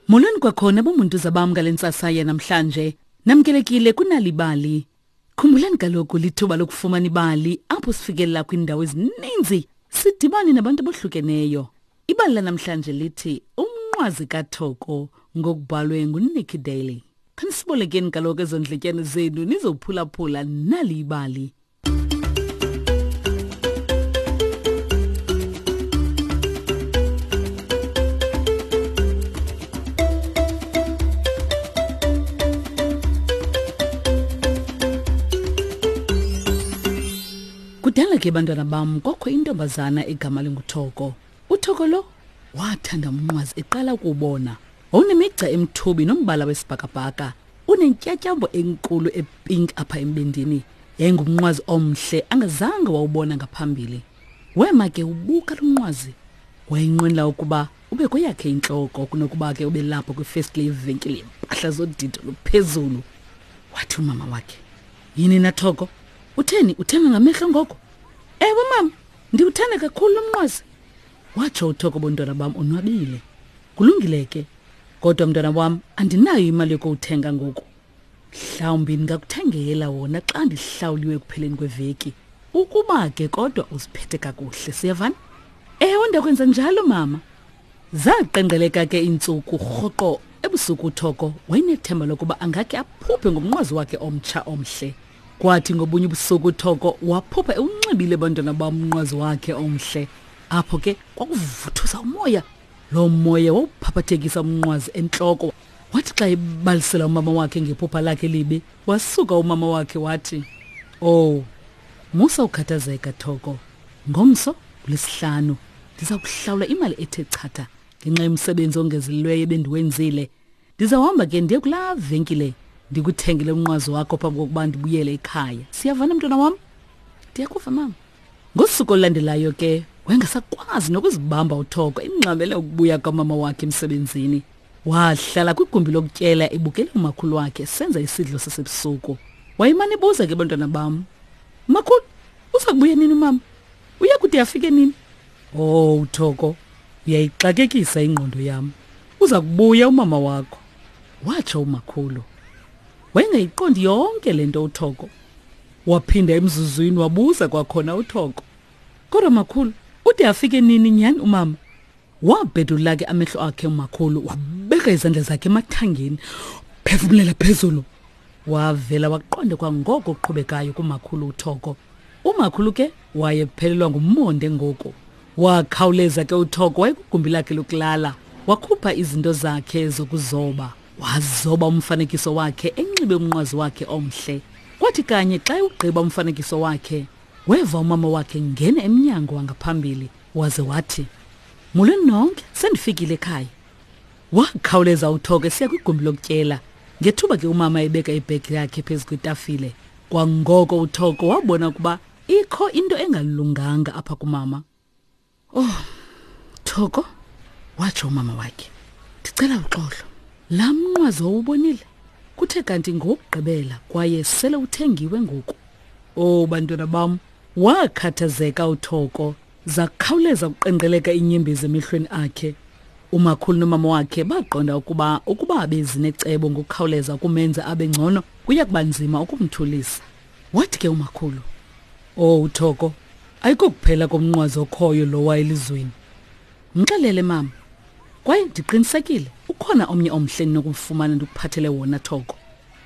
Molweni kwakhona bomuntu zabam ngale ntsasa yanamhlanje. Namkelekile kunalibali. Khumbulani kaloku lithuba lokufumana ibali apho sifikelela kwiindawo ezininzi sidibane nabantu abohlukeneyo. Ibali lanamhlanje lithi Umnqwazi kaThoko ngokubhalwe nguNicky Daly. Khanisibolekeni kaloku ezo ndletyane zenu nizophulaphula nali ibali. Kudala ke bantwana bam kwakho intombazana egama linguThoko. UThoko lo wathanda umnqwazi eqala ukuwubona. Wawunemigca emthubi nombala wesibhakabhaka, unentyatyambo enkulu epink apha embindini. Yayingumnqwazi omhle angazange wawubona ngaphambili. Wema ke ubuka lo mnqwazi. Wayenqwenela ukuba ube kweyakhe intloko kunokuba ke ube lapho kwifestile yevenkile yempahla zodidi oluphezulu. Wathi umama wakhe, Yini na Thoko? Utheni uthenga ngamehlo ngoko? Ewe mama, ndiwuthanda kakhulu lo mnqwazi. Watsho uThoko bontwana bam onwabile. Kulungile ke. Kodwa mntwana wam andinayo imali yokuwuthenga ngoku. Mhlawumbi ndingakuthengela wona xa ndihlawuliwe ekupheleni kweveki. Ukuba ke kodwa uziphethe kakuhle, siyavana? Ewe, ndakwenza njalo mama. Zaqengqeleka ke iintsuku rhoqo ebusuku uThoko wayenethemba lokuba angakhe aphuphe ngomnqwazi wakhe omtsha omhle. Kwathi ngobunye ubusuku uThoko waphupha ewunxibile bantwana bam umnqwazi wakhe omhle. Apho ke kwakuvuthuza umoya. Loo moya wawuphaphathekisa umnqwazi entloko. Wathi xa ebalisela umama wakhe ngephupha lakhe libi, wasuka umama wakhe wathi, "Oh, musa ukukhathazeka Thoko. Ngomso uLwesihlanu ndiza kuhlawula imali ethe chatha ngenxa yomsebenzi ongezelelweyo ebendiwenzile. Ndizawuhamba ke ndiye kulaa venkile ndikuthengele umnqwazi wakho phambi kokuba ndibuyele ekhaya. Siyavana mntwana wam? Ndiyakuva mama. Ngosuku olulandelayo ke wayengasakwazi nokuzibamba uThoko ingxamele ukubuya kamama wakhe emsebenzini. Wahlala kwigumbi lokutyela ebukele umakhulu wakhe esenza isidlo sasebusuku. Wayemane ebuza ke bantwana bam, Makhulu, uza kubuya nini umama? Uya kude afike nini? Oh, Thoko, uyayixakekisa ingqondo yam. Uza kubuya umama wakho, watsho umakhulu. Wayengayiqondi yonke le nto uThoko. Waphinda emzuzwini wabuza kwakhona uThoko. Kodwa makhulu, ude afike nini nyhani umama? Wabhedula ke amehlo akhe umakhulu, wabeka izandla zakhe emathangeni, phefumulela phezulu. Wavela waqonda kwangoko okuqhubekayo kumakhulu uThoko. Umakhulu ke wayephelelwa ngumonde ngoku. Wakhawuleza ke uThoko wayekugumbi lakhe lokulala, wakhupha izinto zakhe zokuzoba. Wazoba umfanekiso wakhe enxibe umnqwazi wakhe omhle. Kwathi kanye xa ewugqiba umfanekiso wakhe, weva umama wakhe ngena emnyango wangaphambili waze wathi, Molweni nonke, sendifikile ekhaya. Wakhawuleza uThoko esiya kwigumbi lokutyela. Ngethuba ke umama ebeka ibhegi yakhe phezu kwetafile. Kwangoko uThoko wabona ukuba ikho into engalunganga apha kumama. Oh, Thoko, watsho umama wakhe. Ndicela uxolo. Laa mnqwazi wawubonile kuthe kanti ngowokugqibela kwaye sele uthengiwe ngoku. Oh, bantwana bam, wakhathazeka uThoko. Zakhawuleza ukuqenqeleka iinyembezi emehlweni akhe. Umakhulu nomama wakhe baqonda ukuba ukuba bezinecebo ngokukhawuleza ukumenza abe ngcono kuya kuba nzima ukumthulisa. Wathi ke umakhulu, "Oh Thoko, ayikokuphela komnqwazi okhoyo lowa elizweni. Mxelele mama. Kwaye ndiqinisekile ukhona omnye omhle ndinokumfumana ndikuphathele wona Thoko."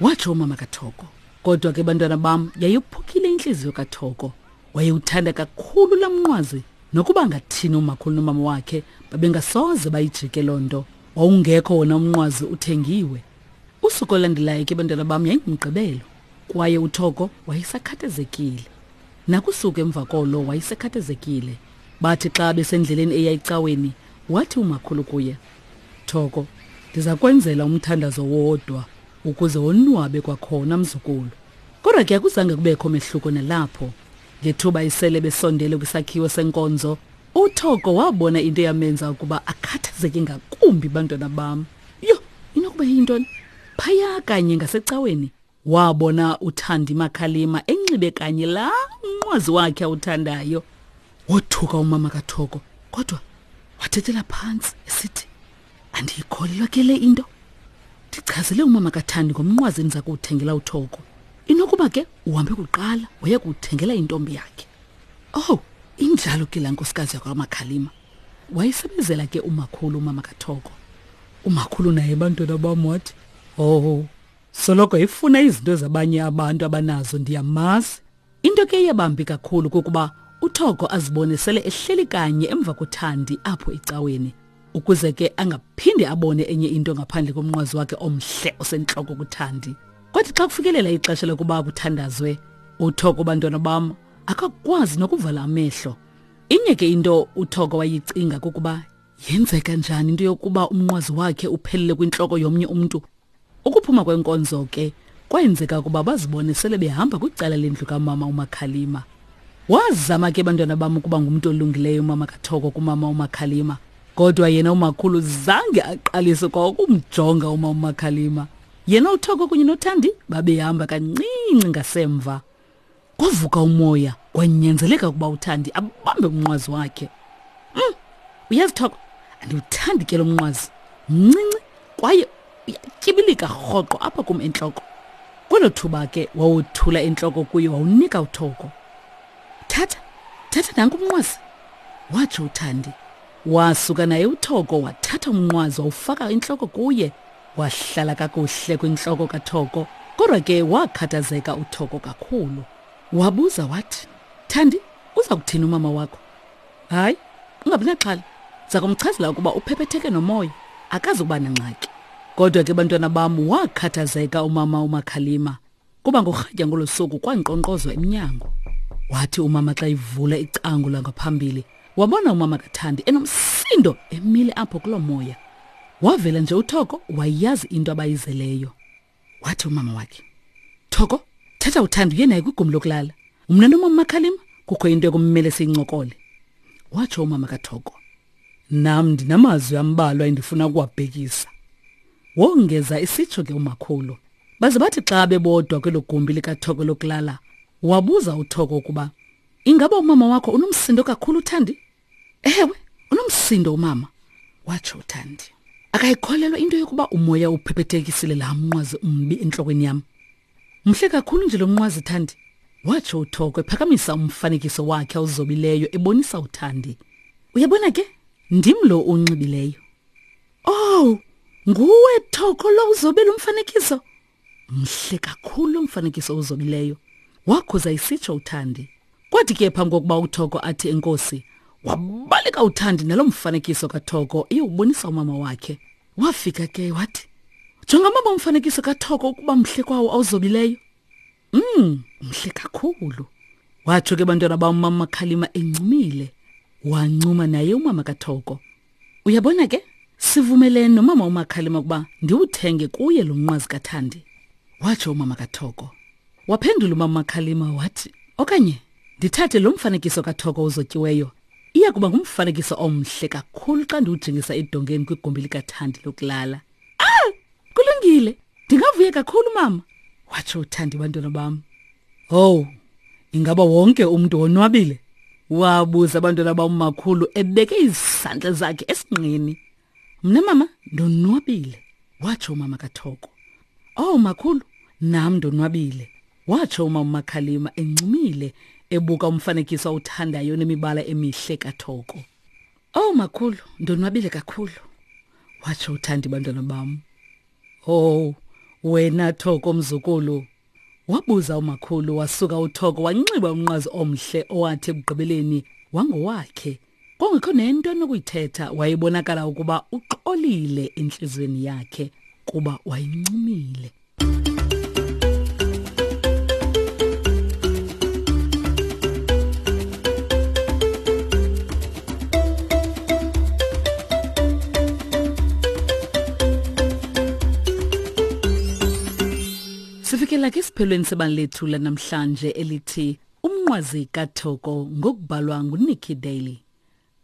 Watsho umama kaThoko. Kodwa ke bantwana bam yayophukile intliziyo kaThoko. Wayewuthanda kakhulu laa mnqwazi nokuba angathini umakhulu nomama wakhe babengasoze bayijike loo nto. Wawungekho wona umnqwazi uthengiwe. Usuku olulandelayo ke bantwana bam yayingumgqibelo kwaye uThoko wayesakhathazekile. Nakusuku emva kolo wayesekhathazekile. Bathi xa besendleleni eya ecaweni wathi umakhulu kuye, Thoko, ndiza kwenzela umthandazo wodwa ukuze wonwabe kwakhona mzukulu. Kodwa ke akuzange kubekho mehluko nalapho. Ngethuba isele besondele kwisakhiwo senkonzo, uThoko wabona into eyamenza ukuba akhathazeke ngakumbi bantwana bam. Yho, inokuba yintoni? Phaya kanye ngasecaweni wabona uThandi Makhalima enxibe kanye laa mnqwazi wakhe awuthandayo. Wothuka umama kaThoko kodwa wathethela phantsi esithi, Andiyikholelwa ke le into. Ndichazele umama kaThandi ngomnqwazi endiza kuwuthengela uThoko. Inokuba ke uhambe kuqala waya kuwuthengela intombi yakhe. Oh, injalo ke laa nkosikazi yakwaMakhalima. Wayesebenzela ke umakhulu umama kaThoko. Umakhulu naye bantwana bam wathi, "Oh, soloko efuna izinto zabanye abantu abanazo ndiyamazi." Into ke eyabambi kakhulu kukuba uThoko azibone sele ehleli kanye emva koThandi apho ecaweni ukuze ke angaphinde abone enye into ngaphandle komnqwazi wakhe omhle osentloko kuThandi. Kwathi xa kufikelela ixesha lokuba kuthandazwe, uThoko bantwana bam akakwazi nokuvala amehlo. Inye ke into uThoko wayicinga kukuba yenzeka njani into yokuba umnqwazi wakhe uphelele kwintloko yomnye umntu. Ukuphuma kwenkonzo ke kwenzeka ukuba bazibone sele behamba kwicala lendlu kamama uMakhalima. Wazama ke bantwana bam ukuba ngumntu olungileyo umama kaThoko kumama uMakhalima. Kodwa yena umakhulu zange aqalise kwa ukumjonga umama uMakhalima. Yena uThoko kunye noThandi babehamba kancinci ngasemva. Kwavuka umoya kwanyanzeleka ukuba uThandi abambe umnqwazi wakhe. Uyazi Thoko, andiwuthandi ke lo mnqwazi. Mncinci kwaye uyatyibilika rhoqo apha kum entloko. Kwelo thuba ke wawothula intloko kuye wawunika uThoko. Thatha, thatha nanku umnqwazi, watsho uThandi. Wasuka naye uThoko wathatha umnqwazi wawufaka intloko kuye. Wahlala kakuhle kwintloko kaThoko, kodwa ke wakhathazeka uThoko kakhulu. Wabuza wathi, Thandi, uza kuthini umama wakho? Hayi, ungabi naxhala. Ndiza kumchazela ukuba uphephetheke nomoya, akazi ukuba nangxaki. Kodwa ke bantwana bam, wakhathazeka umama uMakhalima. Kuba ngorhatya ngolo suku kwankqonkqozwa emnyango. Wathi umama xa ivula icango langaphambili, wabona umama kaThandi enomsindo emile apho kuloo moya. Wavela nje uThoko wayazi into abayizeleyo. Wathi umama wakhe, Thoko, thatha uThandi uye naye kwigumbi lokulala. Mna nomama Makhalima kukho into ekumele siyincokole. Watsho umama kaThoko. Nam ndinamazwi ambalwa endifuna ukuwabhekisa. Wongeza isitsho ke umakhulu. Baze bathi xa bebodwa kwelo gumbi likaThoko lokulala, wabuza uThoko ukuba ingaba umama wakho unomsindo kakhulu uThandi? Ewe, unomsindo umama, watsho uThandi. Akayikholelwa into yokuba umoya uphephethekisile laa mnqwazi umbi entlokweni yam. Mhle kakhulu nje lo mnqwazi Thandi, watsho uThoko ephakamisa umfanekiso wakhe awuzobileyo ebonisa uThandi. Uyabona ke, ndim lo unxibileyo. Oh, nguwe Thoko lo uzobe lo mfanekiso? Mhle kakhulu lo mfanekiso uzobileyo. Wakhuza isitsho uThandi. Kwathi ke phambi kokuba uThoko athi enkosi, wabaleka uThandi nalo mfanekiso kaThoko eyowubonisa umama wakhe. Wafika ke wathi, Jonga mama umfanekiso kaThoko ukuba mhle kwawo awuzobileyo. Mhle kakhulu. Watsho ke bantwana bam umama Khalima encumile. Wancuma naye umama kaThoko. Uyabona ke, sivumelene nomama uMakhalima ukuba ndiwuthenge kuye lo mnqwazi kaThandi. Watsho umama kaThoko. Waphendula umama uMakhalima wathi, okanye ndithathe lo mfanekiso kaThoko uzotyiweyo. Iya kuba ngumfanekiso omhle kakhulu xa ndiwujingisa edongeni kwigumbi likaThandi lokulala. Ah! Kulungile. Ndingavuya kakhulu mama. Watsho uThandi bantwana bam. Owu, ingaba wonke umntu wonwabile? Wabuza abantwana bammakhulu ebeke izandla zakhe esinqeni. Mna mama ndonwabile, watsho umama kaThoko. Oh makhulu, nam ndonwabile, watsho umama uMakhalima encumile ebuka umfanekiso awuthandayo nemibala emihle kaThoko. Oh makhulu, ndonwabile kakhulu, watsho uThandi bantwana bam. Oh, wena Thoko mzukulu, Wabuza umakhulu wasuka uThoko wanxiba umnqwazi omhle owathi ekugqibeleni wangowakhe. Kwangekho nento anokuyithetha wayebonakala ukuba uxolile entliziyweni yakhe kuba wayencumile. Sifikela ke esiphelweni sebali lethu lanamhlanje elithi Umnqwazi kaThoko ngokubhalwa nguNikki Daly.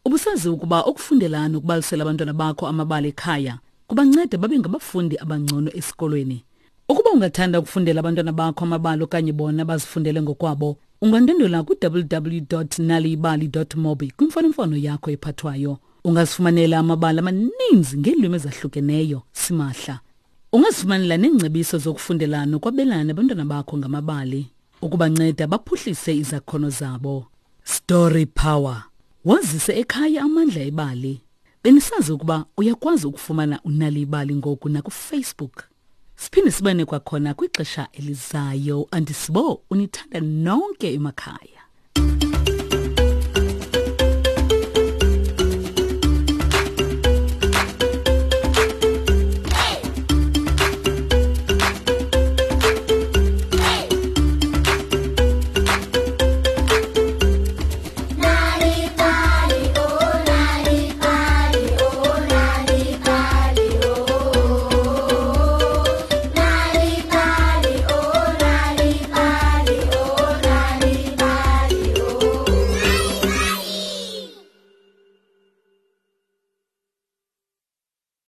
Ubusazi ukuba ukufundela nokubalisela abantwana bakho amabali ekhaya kubanceda babe ngabafundi abangcono esikolweni. Ukuba ungathanda ukufundela abantwana bakho amabali okanye bona bazifundele ngokwabo, ungandwendwela ku-www.naliyibali.mobi kwimfonomfono yakho ephathwayo. Ungazifumanela amabali amaninzi ngeelwimi ezahlukeneyo simahla. Ungazifumanela neengcebiso zokufundela nokwabelana nabantwana bakho ngamabali ukubanceda baphuhlise izakhono zabo. Story Power. Wazise ekhaya amandla ebali. Benisazi ukuba uyakwazi ukufumana uNal'ibali ngoku nakuFacebook? Siphinde sibane kwakhona kwixesha elizayo. Andisibo unithanda nonke emakhaya.